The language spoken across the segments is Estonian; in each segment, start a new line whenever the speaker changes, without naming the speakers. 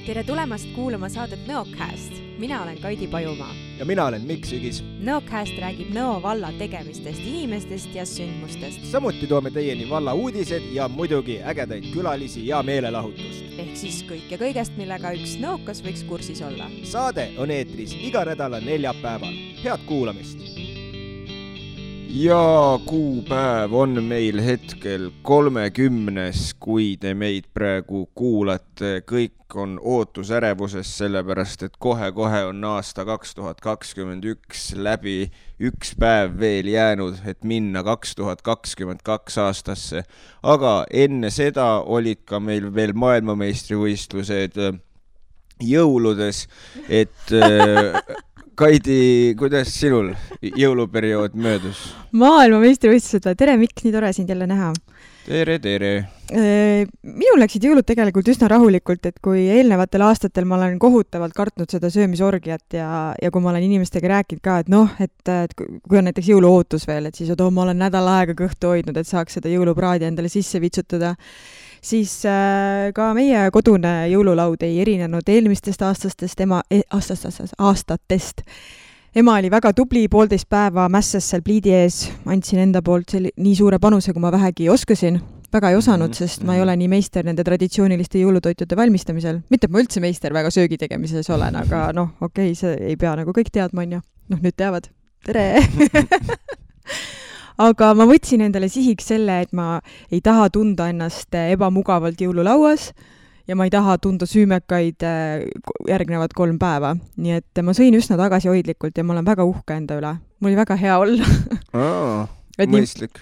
Tere tulemast kuulama saadet Nõocast. Mina olen Kaidi Pajumaa.
Ja mina olen Mikk Sügis.
Nõocast räägib Nõo valla tegemistest, inimestest ja sündmustest.
Samuti toome teieni valla uudised ja muidugi ägedaid külalisi ja meelelahutust.
Ehk siis kõik ja kõigest, millega üks nõokas võiks kursis olla.
Saade on eetris iga nädala neljapäeval. Head kuulamist! Ja kuupäev on meil hetkel 30, kui te meid praegu kuulate. Kõik on ootusärevuses, sellepärast et kohe on aasta 2021 läbi, üks päev veel jäänud, et minna 2022 aastasse. Aga enne seda olid ka meil veel maailmameistrivõistlused jõuludes, et... Kaidi, kuidas sinul jõuluperiood möödus?
Maailmameistrivõistlused, tere Mikk, nii tore sind jälle näha.
Tere.
Minul läksid jõulud tegelikult üsna rahulikult, et kui eelnevatel aastatel ma olen kohutavalt kartnud seda söömisorgiat ja kui ma olen inimestega rääkinud ka, et kui on näiteks jõuluootus veel, et siis ma olen nädal aega kõhtu hoidnud, et saaks seda jõulupraadi endale sisse vitsutada, siis ka meie kodune jõululaud ei erinenud eelmistest aastatest. Ema oli väga tubli, 1,5 päeva mässas seal pliidi ees, andsin enda poolt nii suure panuse, kui ma vähegi oskasin. Väga ei osanud, sest ma ei ole nii meister nende traditsiooniliste jõulutoitude valmistamisel. Mitte, et ma üldse meister väga söögi tegemises olen, aga okei, see ei pea nagu kõik teadma, on ju. Nüüd teavad. Tere! Aga ma võtsin endale sihiks selle, et ma ei taha tunda ennast ebamugavalt jõululauas ja ma ei taha tunda süümekaid järgnevad 3 päeva. Nii et ma sõin üsna tagasihoidlikult ja ma olen väga uhke enda üle. Mul oli väga hea olla.
Mõistlik.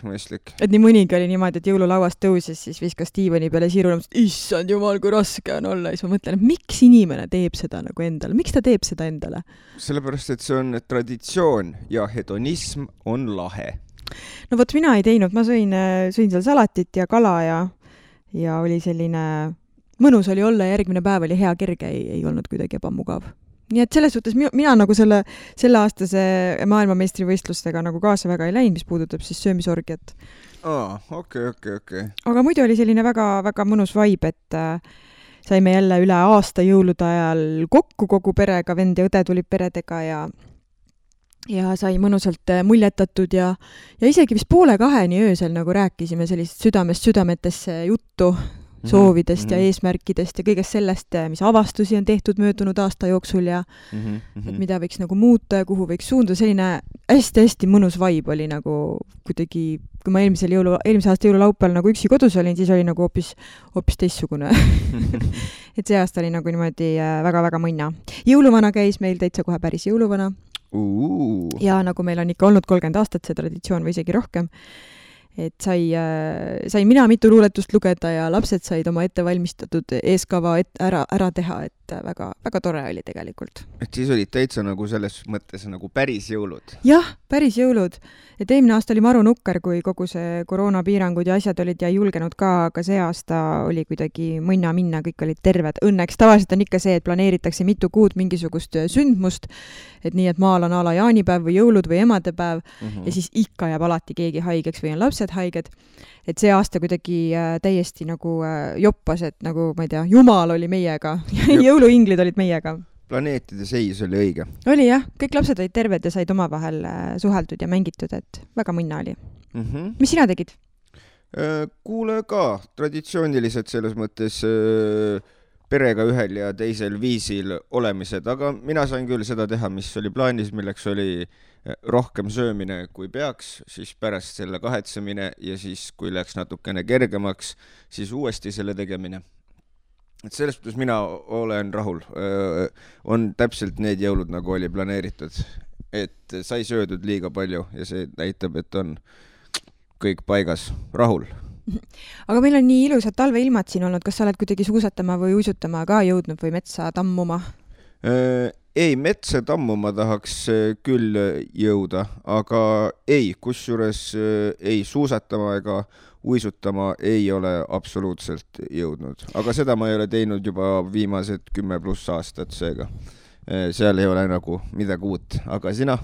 Et nii mõnigi oli niimoodi, et jõululauast tõusis, siis viskas diivani peale siirule, issand jumal, kui raske on olla. Ja siis ma mõtlen, et miks inimene teeb seda nagu endale? Miks ta teeb seda endale?
Sellepärast, et see on traditsioon ja hedonism on lahe.
No vot, mina ei teinud, ma sõin seal salatit ja kala ja oli selline mõnus oli olla ja järgmine päev oli hea kerge, ei olnud kuidagi ebamugav. Nii et selles suhtes mina nagu selle aastase maailmameistrivõistlustega nagu kaasa väga ei läinud, mis puudutab siis söömisorgiat.
Okei.
Aga muidu oli selline väga mõnus vibe, et saime jälle üle aasta jõulude ajal kokku kogu perega, vend ja õde tulid peredega ja sai mõnusalt muljetatud ja isegi vist 1:30 öösel nagu rääkisime sellist südamest südametesse juttu soovidest ja eesmärkidest ja kõigest sellest, mis avastusi on tehtud möödunud aasta jooksul ja et mida võiks nagu muuta ja kuhu võiks suunda. Selline hästi mõnus vibe oli nagu kuidagi, kui ma eelmise aasta jõululaupäeval nagu üksi kodus olin, siis oli nagu hoopis teistsugune. Et see aasta oli nagu niimoodi väga mõnna. Jõuluvana käis meil täitsa kohe päris jõuluvana. Ja nagu meil on ikka olnud 30 aastat see traditsioon või isegi rohkem, et sai mina mitu luuletust lugeda ja lapsed said oma ettevalmistatud eeskava ära teha, et väga tore oli tegelikult.
Et siis olid täitsa nagu selles mõttes nagu päris jõulud?
Jah, päris jõulud. Et eelmine aasta oli maru nukker, kui kogu see koroonapiirangud ja asjad olid ja ei julgenud ka, aga see aasta oli kuidagi mõnna minna, kõik olid terved. Õnneks tavaliselt on ikka see, et planeeritakse mitu kuud mingisugust sündmust, et nii, et maal on ala jaanipäev või jõulud või emadepäev ja siis ikka jääb alati keegi haigeks või on lapsed haiged. Et see aasta kuidagi täiesti nagu joppas, et nagu, ma ei tea, Jumal oli meiega ja jõuluinglid olid meiega.
Planeetide seis oli õige.
Oli jah, kõik lapsed olid terved ja said omavahel suheldud ja mängitud, et väga mõnna oli. Mis sina tegid?
Kuule ka, traditsiooniliselt selles mõttes perega ühel ja teisel viisil olemised, aga mina sain küll seda teha, mis oli plaanis, milleks oli rohkem söömine kui peaks, siis pärast selle kahetsemine ja siis kui läks natukene kergemaks, siis uuesti selle tegemine. Et selles mõttes mina olen rahul. On täpselt need jõulud, nagu oli planeeritud. Et sai söödud liiga palju ja see näitab, et on kõik paigas. Rahul.
Aga meil on nii ilusad talveilmad siin olnud. Kas sa oled kuidagi suusatama või uisutama ka jõudnud või metsa tammuma?
Ei, metsa tammuma tahaks küll jõuda, aga ei, kusjuures ei suusatama ega uisutama ei ole absoluutselt jõudnud. Aga seda ma ei ole teinud juba viimased 10+ aastat seega. Seal ei ole nagu midagi uut, aga sina?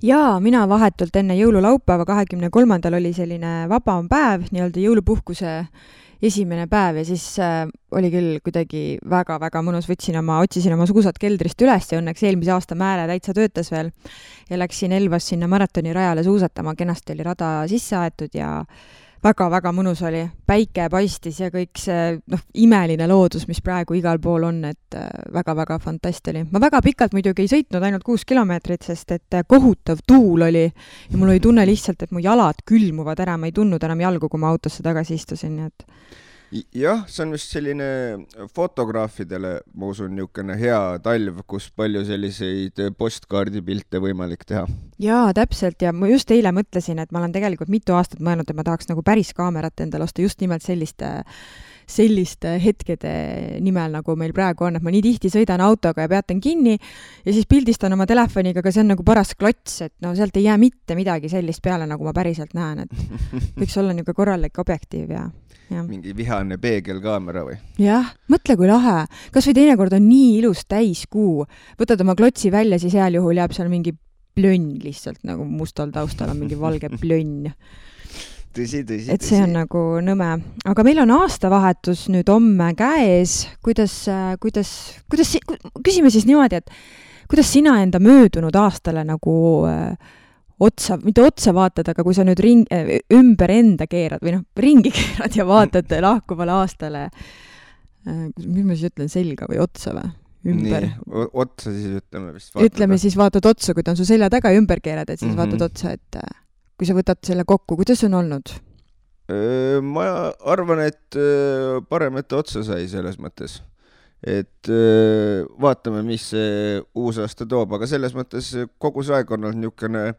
Jaa, mina vahetult enne jõululaupäeva 23. oli selline vabam päev, nii-öelda jõulupuhkuse esimene päev ja siis oli küll kuidagi väga-väga mõnus, otsisin oma suusad keldrist üles ja õnneks eelmise aasta määre täitsa töötas veel ja läksin Elvas sinna maratonirajale suusatama, kenasti oli rada sisse aetud ja väga-väga mõnus oli, päike paistis ja kõik see imeline loodus, mis praegu igal pool on, et väga-väga fantast oli. Ma väga pikalt muidugi ei sõitnud, ainult 6 kilomeetrit, sest et kohutav tuul oli ja mul oli tunne lihtsalt, et mu jalad külmuvad ära, ma ei tundnud enam jalgu, kui ma autosse tagasi istusin, nii et
jah, see on vist selline fotograafidele, ma usun, niisugune hea talv, kus palju selliseid postkaardipilte võimalik teha.
Jaa, täpselt ja ma just eile mõtlesin, et ma olen tegelikult mitu aastat mõelnud, et ma tahaks nagu päris kaamerat endale osta just nimelt selliste hetkede nimel, nagu meil praegu on, et ma nii tihti sõidan autoga ja peatan kinni ja siis pildistan oma telefoniga, aga see on nagu paras klots, et sealt ei jää mitte midagi sellist peale, nagu ma päriselt näen, et võiks olla niisugune korralik objektiiv ja
mingi vihane peegelkaamera või?
Jah, mõtle kui lahe. Kas või teinekord on nii ilus täiskuu. Võtad oma klotsi välja, siis heal juhul jääb seal mingi plönn lihtsalt, nagu mustal taustal on mingi valge plönn.
Tõsi.
Et see on nagu nõme. Aga meil on aastavahetus nüüd homme käes. Küsime siis niimoodi, et kuidas sina enda möödunud aastale nagu mitte otsa vaatad, aga kui sa nüüd ümber enda keerad või ringi keerad ja vaatad lahkuvale aastale, mis ma siis ütlen, selga või otsa või? Ümber.
Nii, otsa siis ütleme vist.
Ütleme siis vaatad otsa, kui ta on su selja taga ja ümber keerad, et siis vaatad otsa, et kui sa võtad selle kokku, kuidas on olnud?
Ma arvan, et parem, et otsa sai selles mõttes. Et vaatame, mis see uus aasta toob, aga selles mõttes kogu see aeg on olnud niisugune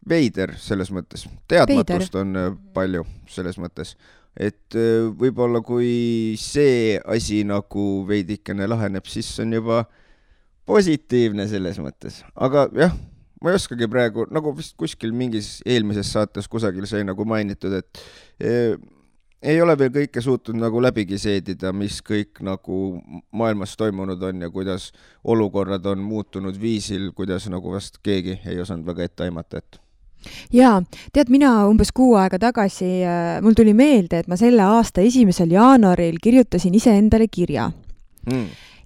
veider selles mõttes. Teadmatust on palju selles mõttes. Et võib-olla kui see asi nagu veidikene laheneb, siis on juba positiivne selles mõttes. Aga jah, ma ei oskagi praegu, nagu vist kuskil mingis eelmises saates kusagil sai nagu mainitud, et ei ole veel kõike suutnud nagu läbigi seedida, mis kõik nagu maailmas toimunud on ja kuidas olukorrad on muutunud viisil, kuidas nagu vast keegi ei osanud väga ette aimata, et
Jaa, tead, mina umbes 6 aega tagasi, mul tuli meelde, et ma selle aasta 1. jaanuaril kirjutasin iseendale kirja.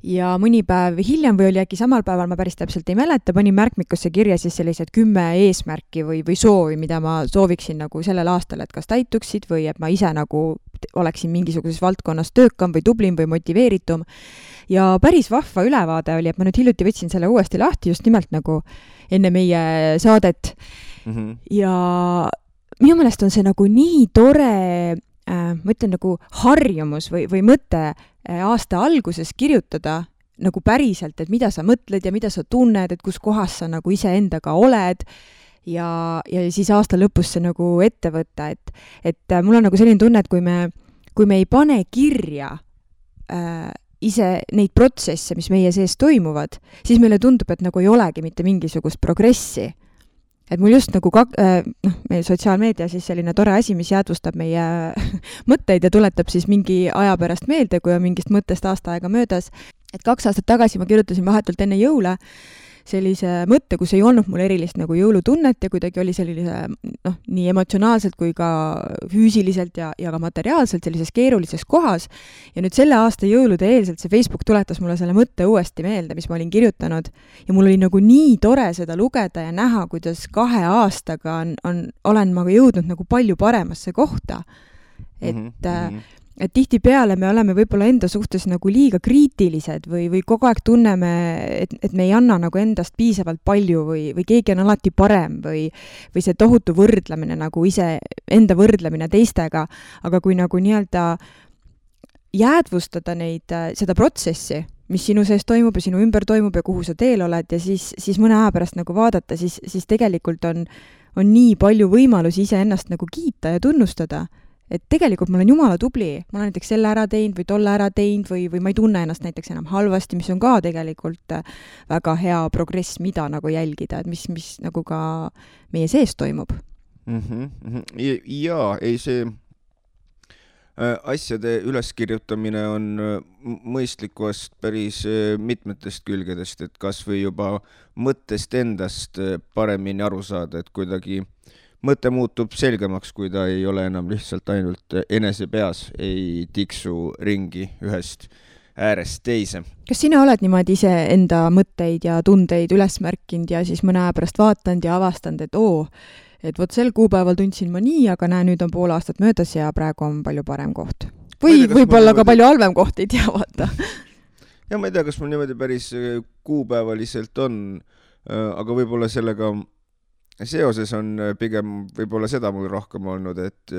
Ja mõni päev hiljem või oli äkki samal päeval, ma päris täpselt ei mäleta, panin märkmikusse kirja siis sellised 10 eesmärki või soovi, mida ma sooviksin nagu sellel aastal, et kas täituksid või et ma ise nagu oleksin mingisuguses valdkonnas töökam või tublim või motiveeritum. Ja päris vahva ülevaade oli, et ma nüüd hiljuti võtsin selle uuesti lahti just nimelt nagu enne meie saadet. Ja minu meelest on see nagu nii tore, ma ütlen nagu harjumus või mõte aasta alguses kirjutada nagu päriselt, et mida sa mõtled ja mida sa tunned, et kus kohas sa nagu iseendaga oled ja siis aasta lõpus see nagu ette võtta, et mul on nagu selline tunne, et kui me ei pane kirja ise neid protsesse, mis meie sees toimuvad, siis meile tundub, et nagu ei olegi mitte mingisugust progressi. Et mul just nagu meie sotsiaalmeedia siis selline tore asi, mis jäädvustab meie mõtteid ja tuletab siis mingi aja pärast meelde, kui on mingist mõttest aasta aega möödas. Et 2 aastat tagasi ma kirjutasin vahetult enne jõule sellise mõtte, kus ei olnud mul erilist nagu jõulutunnet ja kuidagi oli sellise nii emotsionaalselt kui ka füüsiliselt ja ka materiaalselt sellises keerulises kohas. Ja nüüd selle aasta jõulude eelselt see Facebook tuletas mulle selle mõtte uuesti meelde, mis ma olin kirjutanud. Ja mul oli nagu nii tore seda lugeda ja näha, kuidas 2 aastaga olen ma jõudnud nagu palju paremasse kohta. Et tihti peale me oleme võib-olla enda suhtes nagu liiga kriitilised või kogu aeg tunneme, et me ei anna nagu endast piisavalt palju või keegi on alati parem või see tohutu võrdlemine nagu enda võrdlemine teistega, aga kui nagu nii-öelda jäädvustada seda protsessi, mis sinu sees toimub ja sinu ümber toimub ja kuhu sa teel oled ja siis mõne aja pärast nagu vaadata, siis tegelikult on nii palju võimalusi iseennast nagu kiita ja tunnustada. Et tegelikult ma olen jumala tubli, ma olen näiteks selle ära teinud või tolle ära teinud või ma ei tunne ennast näiteks enam halvasti, mis on ka tegelikult väga hea progress, mida nagu jälgida, et mis nagu ka meie sees toimub.
Jaa, ei see asjade üleskirjutamine on mõistlikust päris mitmetest külgedest, et kas või juba mõttest endast paremini aru saada, et kuidagi mõte muutub selgemaks, kui ta ei ole enam lihtsalt ainult enese peas, ei tiksu ringi ühest äärest teise.
Kas sina oled niimoodi ise enda mõtteid ja tundeid üles märkinud ja siis mõne aja pärast vaatanud ja avastanud, et vot sel kuupäeval tundsin ma nii, aga näe, nüüd on pool aastat möödas ja praegu on palju parem koht. Või võib-olla ka palju halvem koht, ei tea, vaata.
Ja ma ei tea, kas mul niimoodi päris kuupäevaliselt on, aga võib-olla sellega seoses on pigem võib-olla seda mul rohkem olnud, et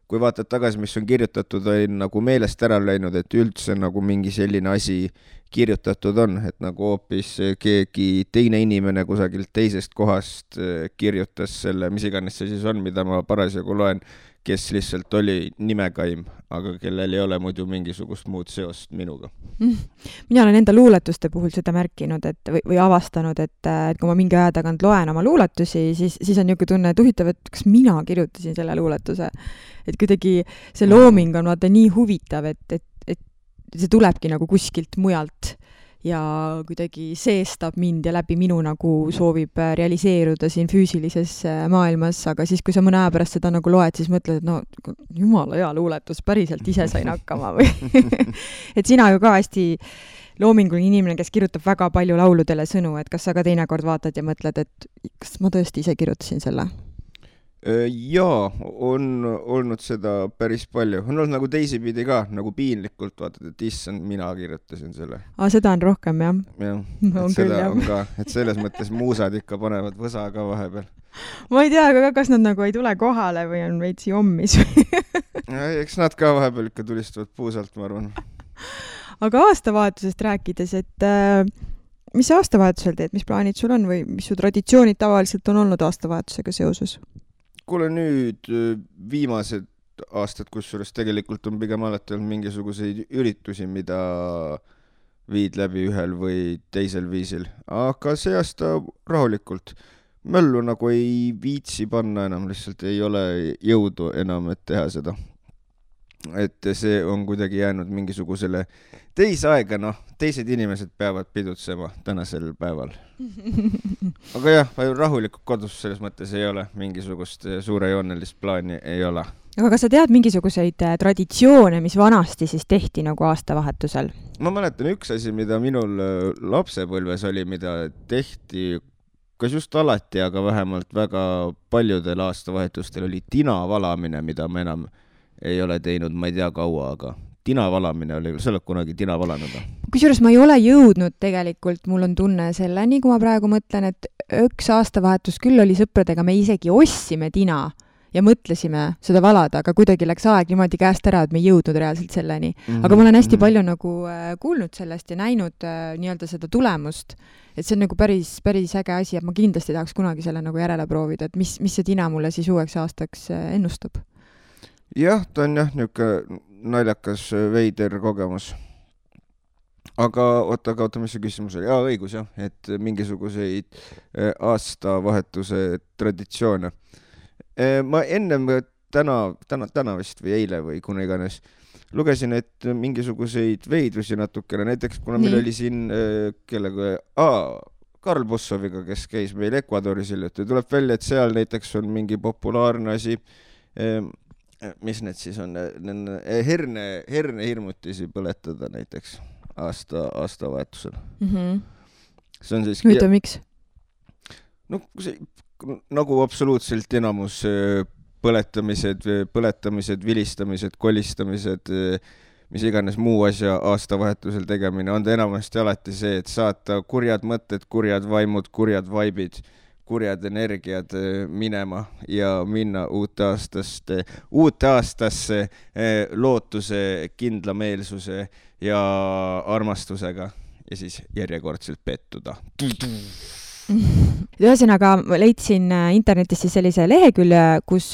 kui vaatad tagasi, mis on kirjutatud, on nagu meelest ära läinud, et üldse nagu mingi selline asi kirjutatud on, et nagu hoopis keegi teine inimene kusagilt teisest kohast kirjutas selle, mis iganes see siis on, mida ma parasjagu loen, kes lihtsalt oli nimekaim, aga kellel ei ole muidu mingisugust muud seost minuga.
Mina olen enda luuletuste puhul seda märkinud või avastanud, et kui ma mingi aja tagant loen oma luuletusi, siis on niisugune tunne, et huvitav, et kas mina kirjutasin selle luuletuse. Et kuidagi see looming on vaata nii huvitav, et see tulebki nagu kuskilt mujalt ja kuidagi seestab mind ja läbi minu nagu soovib realiseeruda siin füüsilises maailmas, aga siis, kui sa mõne aja pärast seda nagu loed, siis mõtled, et no jumala hea luuletus, päriselt ise sain hakkama või et sina ju ka hästi loominguline inimene, kes kirjutab väga palju lauludele sõnu, et kas sa ka teinekord vaatad ja mõtled, et kas ma tõesti ise kirjutasin selle?
Jaa, on olnud seda päris palju. On olnud nagu teisipidi ka, nagu piinlikult vaatad, et issand, mina kirjutasin selle.
Seda on rohkem, jah?
Jah, et seda on ka, et selles mõttes muusad ikka panevad võsa ka vahepeal.
Ma ei tea, aga kas nad nagu ei tule kohale või on veitsi ommis?
Eks nad ka vahepeal ikka tulistavad puusalt, ma arvan.
Aga aastavahetusest rääkides, et mis sa aastavahetusel teed, mis plaanid sul on või mis su traditsioonid tavaliselt on olnud aastavahetusega seoses?
Kuule nüüd viimased aastad, kusjuures tegelikult on pigem alati olnud mingisuguseid üritusi, mida viid läbi ühel või teisel viisil. Aga see aasta rahulikult. Möllu nagu ei viitsi panna enam, lihtsalt ei ole jõudu enam, et teha seda. Et see on kuidagi jäänud mingisugusele teise aega, teised inimesed peavad pidutsema tänasel päeval. Aga jah, rahulikult kodus selles mõttes ei ole, mingisugust suurejoonelist plaani ei ole.
Aga kas sa tead mingisuguseid traditsioone, mis vanasti siis tehti nagu aastavahetusel?
Ma mäletan üks asi, mida minul lapsepõlves oli, mida tehti kas just alati, aga vähemalt väga paljudel aastavahetustel oli tina valamine, mida ma enam ei ole teinud, ma ei tea kaua, aga tina valamine oli, sa oled kunagi tina valanud?
Kusjuures ma ei ole jõudnud tegelikult, mul on tunne selleni, kui ma praegu mõtlen, et üks aastavahetus küll oli sõpradega, me isegi ostsime tina ja mõtlesime seda valada, aga kuidagi läks aeg niimoodi käest ära, et me ei jõudnud reaalselt selleni. Aga ma olen hästi palju nagu kuulnud sellest ja näinud nii-öelda seda tulemust, et see on nagu päris äge asi, et ma kindlasti tahaks kunagi selle nagu järele proovida, et mis see tina mulle siis uueks aastaks ennustab.
Jah, ta on jah niisugune naljakas veider kogemus. Aga oota, mis see küsimus oli? Õigus jah, et mingisuguseid aastavahetuse traditsioone. Ma ennem täna vist või eile või kuna iganes lugesin, et mingisuguseid veidrusi natukene, näiteks kuna meil oli siin Karl Bussoviga, kes käis meil Ecuadoris hiljuti, tuleb välja, et seal näiteks on mingi populaarne asi, mis need siis on, herne hirmutisi põletada näiteks aastavahetusel. See on siis...
Hüta, miks?
No, nagu absoluutselt enamus põletamised, vilistamised, kolistamised, mis iganes muu asja aastavahetusel tegemine, on ta enamasti alati see, et saata kurjad mõtted, kurjad vaimud, kurjad vaibid, kurjad energiad minema ja minna uute aastasse lootuse, kindlameelsuse ja armastusega ja siis järjekordselt pettuda.
Ühesõnaga leidsin internetist sellise lehekülje, kus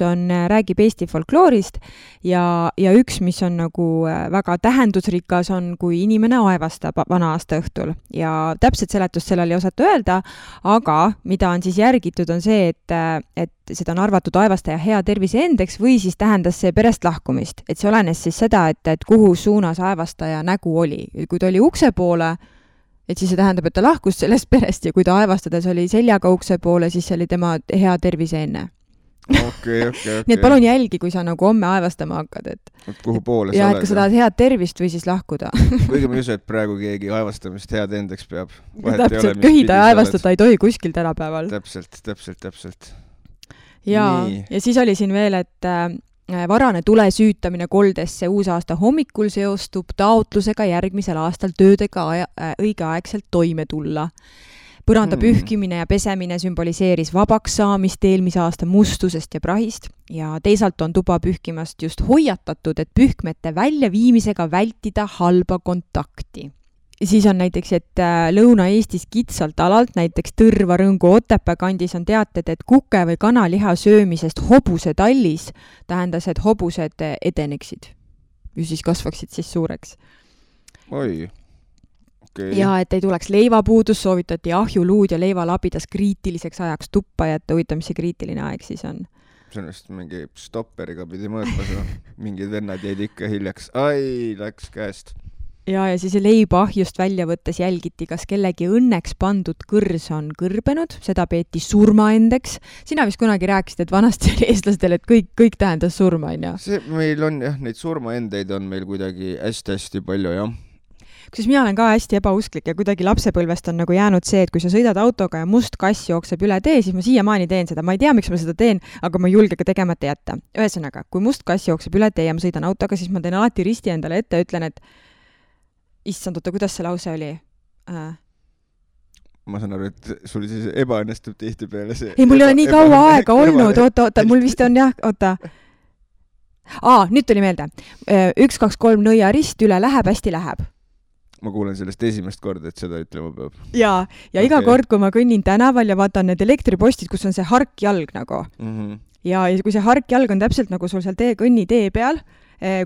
räägib Eesti folkloorist ja üks, mis on nagu väga tähendusrikas, on, kui inimene aevastab vana aasta õhtul. Ja täpselt seletust sellel ei osata öelda, aga mida on siis järgitud, on see, et seda on arvatud aevastaja hea tervise endeks või siis tähendas see perest lahkumist. Et see olenes siis seda, et kuhu suunas aevastaja nägu oli. Kui ta oli ukse poole, et siis see tähendab, et ta lahkus sellest perest ja kui ta aevastades oli seljaga ukse poole, siis see oli tema hea tervise enne.
okei.
Nii et palun jälgi, kui sa nagu homme aevastama hakkad, et
kuhu poole
ja
sa
et ka sa tahad head tervist või siis lahkuda.
Kuigi ma ei usu, et praegu keegi aevastamist head endaks peab.
Täpselt, köhida ja aevastada ei tohi kuskil tänapäeval.
Täpselt.
Ja siis oli siin veel, et varane tule süütamine koldesse uusaasta hommikul seostub taotlusega järgmisel aastal töödega õigeaegselt toime tulla. Põranda pühkimine ja pesemine sümboliseeris vabaks saamist eelmise aasta mustusest ja prahist ja teisalt on tuba pühkimast just hoiatatud, et pühkmete väljaviimisega vältida halba kontakti. Siis on näiteks, et Lõuna-Eestis kitsalt alalt, näiteks Tõrva, Rõngu, Otepää kandis on teated, et kuke või kanaliha söömisest hobuse tallis tähendas, et hobused edeneksid ja siis kasvaksid siis suureks.
Oi. Okay.
Ja et ei tuleks leivapuudus, soovitati ahjuluud ja leivalabidas kriitiliseks ajaks tuppa jätta, huvitav, mis see kriitiline aeg siis on?
See on vist mingi stopperiga pidi mõõtmas, mingid vennad jäid ikka hiljaks. Ai, läks käest.
Ja siis leiba ahjust välja võttes jälgiti, kas kellegi õnneks pandud kõrs on kõrbenud, seda peeti surmaendeks. Sina vist kunagi rääkisid, et vanasti oli eestlastel, et kõik tähendas surma, on ju?
See meil on jah, neid surmaendeid on meil kuidagi hästi palju, jah.
Kusjuures mina olen ka hästi ebausklik ja kuidagi lapsepõlvest on nagu jäänud see, et kui sa sõidad autoga ja must kass jookseb üle tee, siis ma siiamaani teen seda. Ma ei tea, miks ma seda teen, aga ma ei julge ka tegemata jätta. Ühesõnaga, kui must kass jookseb üle tee ja ma sõidan autoga, siis ma teen alati risti endale ette ja ütlen, et issand, kuidas see lause oli?
Ma saan aru, et sul siis ebaõnnestub tihti peale see.
Ei, mul ei ole nii kaua aega olnud. Oota, mul vist on jah, oota. Nüüd tuli meelde. 1, 2, 3 nõia rist üle läheb, hästi läheb.
Ma kuulen sellest esimest korda, et seda ütlema peab.
Ja iga kord, kui ma kõnnin tänaval ja vaatan need elektripostid, kus on see harkjalg nagu. Ja kui see harkjalg on täpselt nagu sul seal kõnni tee peal,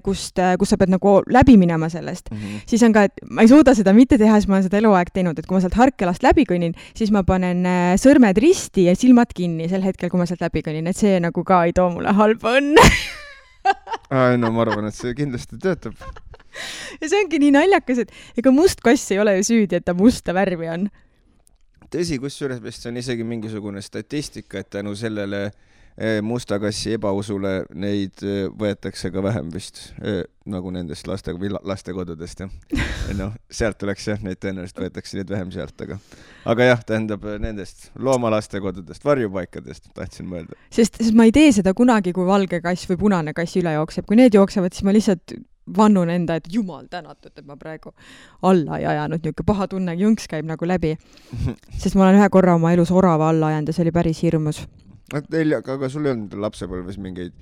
kus sa pead nagu läbi minema sellest, siis on ka, et ma ei suuda seda mitte teha, siis ma olen seda eluaeg teinud, et kui ma sealt harkjalast läbi kõnnin, siis ma panen sõrmed risti ja silmad kinni sel hetkel, kui ma sealt läbi kõnnin, et see nagu ka ei too mulle halba õnne.
No ma arvan, et see kindlasti töötab.
Ja see ongi nii naljakas, et ega must kass ei ole ju süüdi, et ta musta värvi on.
Tõsi, kusjuures vist on isegi mingisugune statistika, et tänu sellele musta kassi ebausule neid võetakse ka vähem vist, nagu nendest lastekodudest. Ja. Sealt tuleks jah, neid tõenäoliselt võetakse neid vähem sealt, aga jah, tähendab nendest loomalastekodudest, varjupaikadest tahtsin mõelda.
Sest ma ei tee seda kunagi, kui valge kass või punane kass üle jookseb. Kui need jooksevad, siis ma lihtsalt vannun enda, et jumal tänatud, et ma praegu alla ei ajanud, niuke paha tunne, jõnks käib nagu läbi. Sest ma olen ühe korra oma elus orava alla ajanud ja see oli päris hirmus.
Aga sul ei olnud lapsepõlves mingeid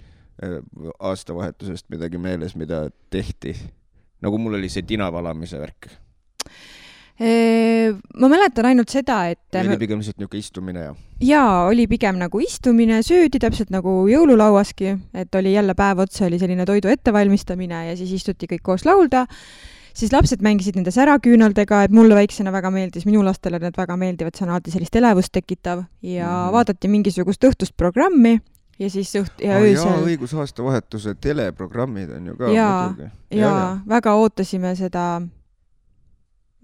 aastavahetusest midagi meeles, mida tehti? Nagu mul oli see tinavalamise värk.
Ma mäletan ainult seda, et
oli pigem niisugune istumine ja?
Jaa, oli pigem nagu istumine, söödi täpselt nagu jõululauaski, et oli jälle päev otsa, oli selline toidu ettevalmistamine ja siis istuti kõik koos laulda. Siis lapsed mängisid nende säraküünaldega, et mulle väiksena väga meeldis, minu lastele need väga meeldivad, see on alati sellist elevust tekitav ja vaadati mingisugust õhtust programmi ja siis öösel.
Jaa, õigusaastavahetuse teleprogrammid on ju ka.
Jaa, väga ootasime seda.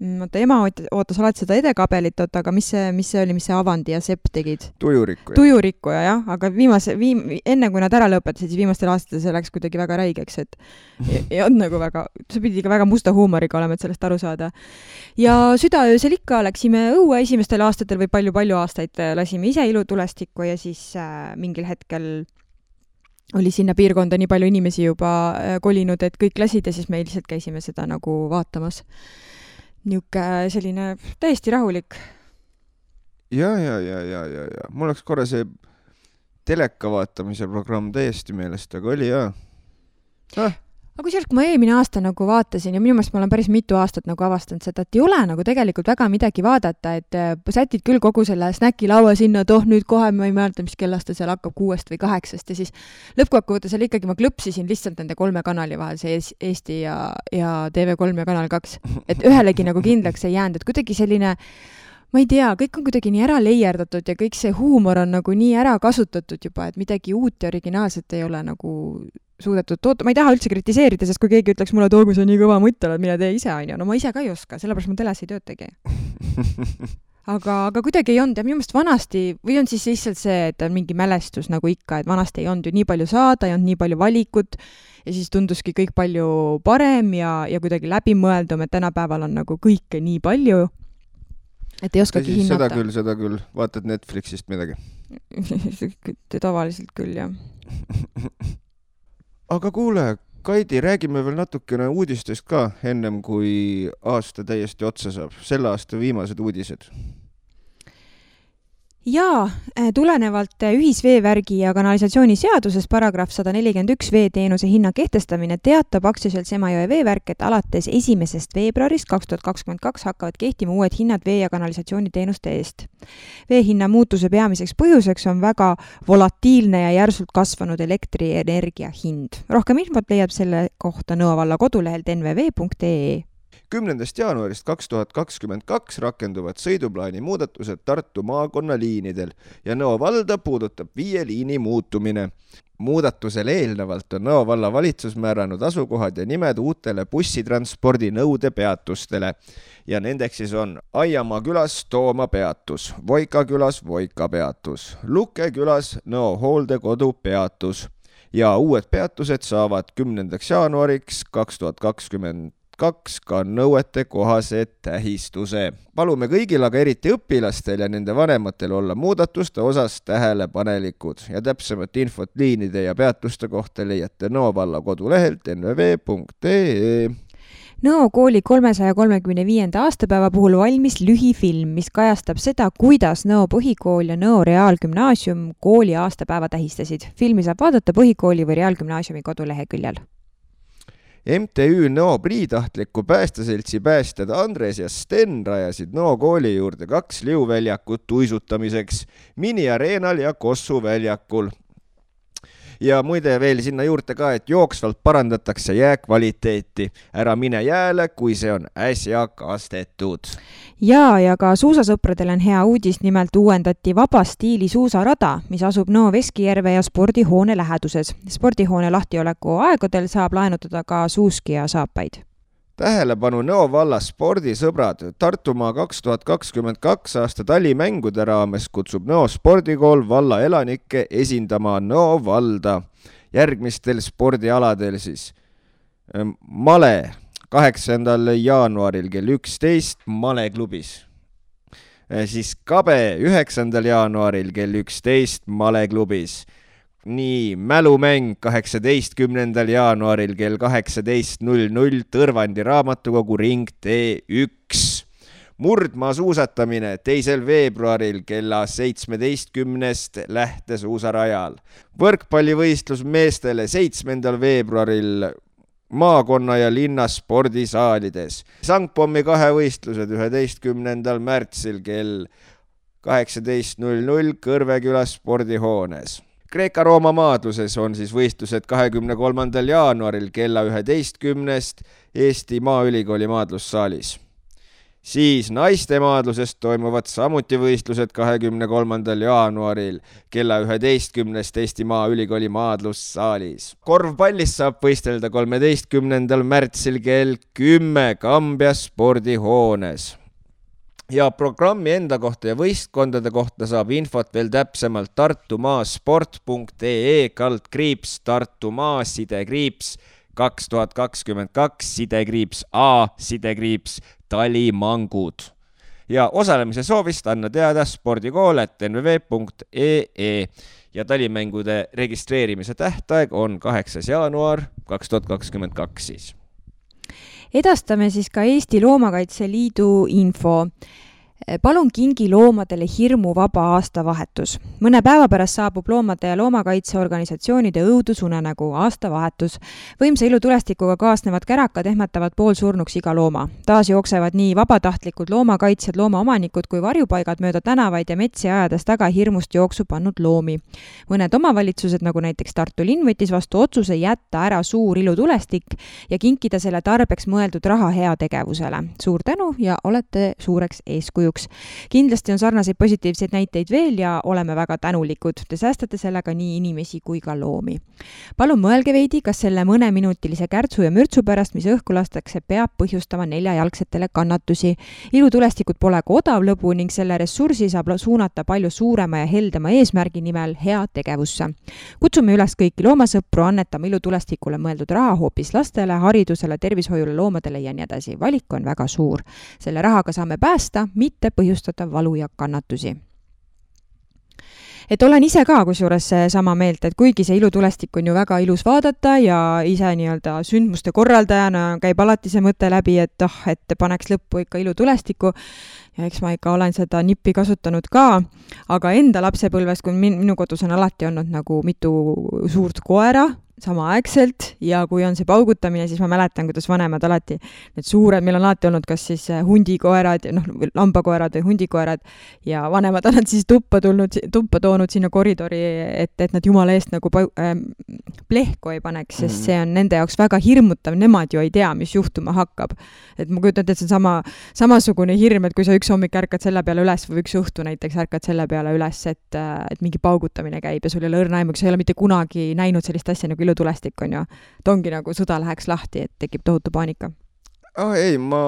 Ema ootas alati seda edekabelit, aga mis see oli, mis see Avandi ja Sepp tegid? Tujurikkuja, jah, aga enne kui nad ära lõpetasid, siis viimastel aastatel see läks kuidagi väga räigeks, et ei olnud nagu väga, see pidi ka väga musta huumoriga olema, et sellest aru saada. Ja südaöösel ikka läksime õue esimestel aastatel või palju aastaid lasime ise ilutulestikku ja siis mingil hetkel oli sinna piirkonda nii palju inimesi juba kolinud, et kõik lasid ja siis me lihtsalt käisime seda nagu vaatamas. Niuke selline täiesti rahulik.
Ja. Mul oleks korra see teleka vaatamise programm täiesti meelest, aga oli jah.
Aga kusjuures, kui ma eelmine aasta nagu vaatasin ja minu meelest ma olen päris mitu aastat nagu avastanud seda, et ei ole nagu tegelikult väga midagi vaadata, et sätid küll kogu selle snäkilaua sinna, nüüd kohe ma ei mäleta, mis kellast ta seal hakkab 6 või 8 ja siis lõppkokkuvõttes oli ikkagi, ma klõpsisin lihtsalt nende 3 kanali vahel, see Eesti ja TV3 ja Kanal 2, et ühelegi nagu kindlaks ei jäänud, et kuidagi selline, ma ei tea, kõik on kuidagi nii ära leierdatud ja kõik see huumor on nagu nii ära kasutatud juba, et midagi uut ja originaalset ei ole nagu suudetud toota. Ma ei taha üldse kritiseerida, sest kui keegi ütleks mulle, et kui sa nii kõva mutt oled, mine tee ise, on ju. No ma ise ka ei oska, sellepärast ma teles ei töötagi. aga kuidagi ei olnud ja minu meelest vanasti, või on siis lihtsalt see, et on mingi mälestus nagu ikka, et vanasti ei olnud ju nii palju saada, ei olnud nii palju valikut ja siis tunduski kõik palju parem ja kuidagi läbimõeldum, et tänapäeval on nagu kõike nii palju, et ei oskagi hinnata.
Seda küll. Vaatad Netflixist midagi?
Tavaliselt küll, jah.
Aga kuule, Kaidi, räägime veel natukene uudistest ka, ennem kui aasta täiesti otsa saab. Selle aasta viimased uudised.
Jaa, tulenevalt ühisveevärgi ja kanalisatsiooni seaduses paragrahv 141 veeteenuse hinna kehtestamine teatab aktsiaselts Emajõe veevärk, et alates 1. veebruarist 2022 hakkavad kehtima uued hinnad vee- ja kanalisatsiooniteenuste eest. Veehinna muutuse peamiseks põhjuseks on väga volatiilne ja järsult kasvanud elektrienergia hind. Rohkem infot leiab selle kohta Nõo valla kodulehelt nvv.ee.
10. jaanuarist 2022 rakenduvad sõiduplaani muudatused Tartu maakonna liinidel ja Nõo valda puudutab 5 liini muutumine. Muudatusele eelnevalt on Nõo valla valitsus määranud asukohad ja nimed uutele bussitranspordi nõudepeatustele ja nendeks siis on Aiamaa külas Tooma peatus, Voika külas Voika peatus, Luke külas Nõo hooldekodu peatus ja uued peatused saavad 10. jaanuariks 2022 ka nõuete kohase tähistuse. Palume kõigil, aga eriti õpilastel ja nende vanematel olla muudatuste osas tähelepanelikud ja täpsemat infot liinide ja peatuste kohta leiate Nõo valla kodulehelt nvv.ee.
Nõo kooli 335. aastapäeva puhul valmis lühifilm, mis kajastab seda, kuidas Nõo põhikool ja Nõo reaalgümnaasium kooli aastapäeva tähistasid. Filmi saab vaadata põhikooli või reaalgümnaasiumi koduleheküljel.
MTÜ Nõo Priitahtliku päästeseltsi päästjad Andres ja Sten rajasid Nõo kooli juurde 2 liuväljakut uisutamiseks miniareenal ja Kossu väljakul. Ja muide veel sinna juurde ka, et jooksvalt parandatakse jää kvaliteeti. Ära mine jääle, kui see on äsja kastetud.
Ja ka suusasõpradel on hea uudis, nimelt uuendati vaba stiili suusarada, mis asub Nõo Veskijärve ja spordihoone läheduses. Spordihoone lahtioleku aegadel saab laenutada ka suuski ja saapaid.
Tähelepanu Nõo valla spordisõbrad. Tartumaa 2022 aasta talimängude raames kutsub Nõo spordikool valla elanikke esindama Nõo valda. Järgmistel spordialadel siis Male 8. jaanuaril kell 11 Male klubis. Siis Kabe 9. jaanuaril kell 11 Male klubis. Nii, mälumäng 18. jaanuaril kell 18.00 Tõrvandi raamatukogu ring T1. Murdmaa suusatamine 2. veebruaril kella 17 lähtesuusarajal. Võrkpallivõistlus meestele 7. veebruaril maakonna ja linna spordisaalides. Sangpommi 2 võistlused 11. märtsil kell 18.00 Kõrveküla spordihoones. Kreeka-Rooma maadluses on siis võistlused 23. jaanuaril kella 11 Eesti Maaülikooli maadlussaalis. Siis naiste maadlusest toimuvad samuti võistlused 23. jaanuaril kella 11 Eesti Maaülikooli maadlussaalis. Korvpallis saab võistelda 13. märtsil kell 10 Kambja spordihoones. Ja programmi enda kohta ja võistkondade kohta saab infot veel täpsemalt tartumaasport.ee /Tartumaa /2022 /A talimangud. Ja osalemise soovist anna teada spordikool@nvv.ee ja talimängude registreerimise tähtaeg on 8. jaanuar 2022 siis.
Edastame siis ka Eesti Loomakaitse Liidu info. Palun kingi loomadele hirmuvaba aastavahetus. Mõne päeva pärast saabub loomade ja loomakaitseorganisatsioonide õudusunenägu aastavahetus. Võimsa ilutulestikuga kaasnevad kärakad ehmatavad poolsurnuks iga looma. Taas jooksevad nii vabatahtlikud loomakaitsjad, loomaomanikud kui varjupaigad mööda tänavaid ja metsi ajades taga hirmust jooksu pannud loomi. Mõned omavalitsused, nagu näiteks Tartu linn, võttis vastu otsuse jätta ära suur ilutulestik ja kinkida selle tarbeks mõeldud raha heategevusele. Suur tänu ja olete suureks eeskujuks. eduks. Kindlasti on sarnaseid positiivseid näiteid veel ja oleme väga tänulikud. Te säästate sellega nii inimesi kui ka loomi. Palun mõelge veidi, kas selle mõneminutilise kärtsu ja mürtsu pärast, mis õhku lastakse, peab põhjustama neljajalgsetele kannatusi. Ilutulestikud pole ka odav lõbu ning selle ressursi saab suunata palju suurema ja heldema eesmärgi nimel hea tegevusse. Kutsume üles kõiki loomasõpru annetama ilutulestikule mõeldud raha hoopis lastele, haridusele, tervishoiule, loomadele ja nii edasi. Valik on väga suur. Selle rahaga saame päästa, mitte põhjustada valu ja kannatusi. Et olen ise ka kusjuures sama meelt, et kuigi see ilutulestik on ju väga ilus vaadata ja ise nii-öelda sündmuste korraldajana käib alati see mõte läbi, et paneks lõppu ikka ilutulestiku ja eks ma ikka olen seda nippi kasutanud ka, aga enda lapsepõlves, kui minu kodus on alati olnud nagu mitu suurt koera samaaegselt ja kui on see paugutamine, siis ma mäletan, kuidas vanemad alati need suured, meil on alati olnud kas siis hundikoerad, lambakoerad või hundikoerad ja vanemad on nad siis tuppa toonud sinna koridori, et nad jumala eest nagu plehku ei paneks, sest see on nende jaoks väga hirmutav, nemad ju ei tea, mis juhtuma hakkab. Et ma kujutan, et see on samasugune hirm, et kui sa üks hommik ärkad selle peale üles või üks õhtu näiteks ärkad selle peale üles, et mingi paugutamine käib ja sul ei ole õrna aimu, sa ei ole mitte kunagi näinud sellist asja nagu ilutulestik on ju. Ta ongi nagu sõda läheks lahti, et tekib tohutu paanika.
Ei, ma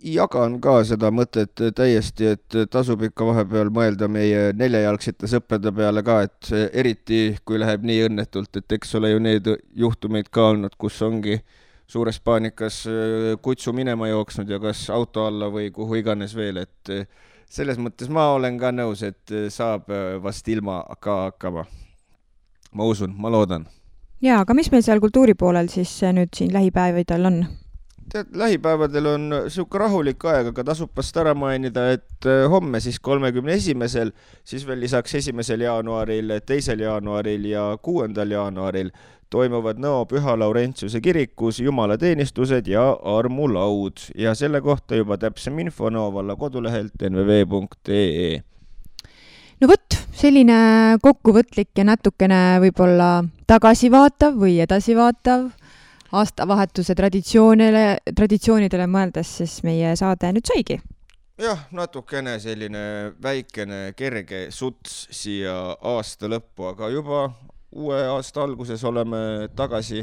jagan ka seda mõtet täiesti, et tasub ikka vahepeal mõelda meie neljajalgsete sõprade peale ka, et eriti kui läheb nii õnnetult, et eks ole ju need juhtumeid ka olnud, kus ongi suures paanikas kutsu minema jooksnud ja kas auto alla või kuhu iganes veel, et selles mõttes ma olen ka nõus, et saab vast ilma ka hakkama. Ma usun, ma loodan.
Jaa, aga mis meil seal kultuuri poolel siis nüüd siin lähipäevadel on?
Tead, lähipäevadel on siuke rahulik aeg, aga tasub vast ära mainida, et homme siis 31. siis veel lisaks 1. jaanuaril, 2. jaanuaril ja 6. jaanuaril toimuvad Nõo Püha Laurentiuse kirikus jumalateenistused ja armulaud ja selle kohta juba täpsem info Nõo valla kodulehelt nvv.ee.
No võt, selline kokkuvõtlik ja natukene võib-olla tagasivaatav või edasivaatav aastavahetuse traditsioonidele mõeldes, siis meie saade nüüd saigi.
Jah, natukene selline väikene kerge suts siia aasta lõppu, aga juba uue aasta alguses oleme tagasi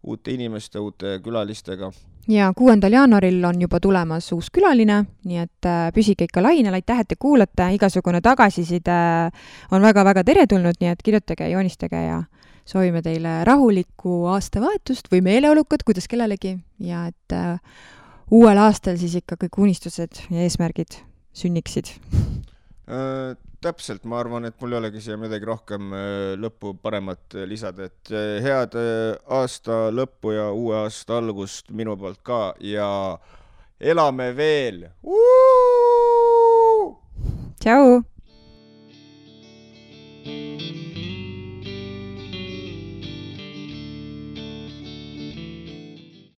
uute inimeste, uute külalistega.
Ja 6. jaanuaril on juba tulemas uus külaline, nii et püsige ikka lainel, aitäh, et te kuulate, igasugune tagasiside on väga-väga teretulnud, nii et kirjutage, joonistage ja soovime teile rahulikku aastavahetust või meeleolukat, kuidas kellelegi ja et uuel aastal siis ikka kõik unistused ja eesmärgid sünniksid.
Täpselt, ma arvan, et mul ei olegi siia midagi rohkem lõppu paremat lisada, et head aasta lõppu ja uue aasta algust minu poolt ka ja elame veel!
Tšau!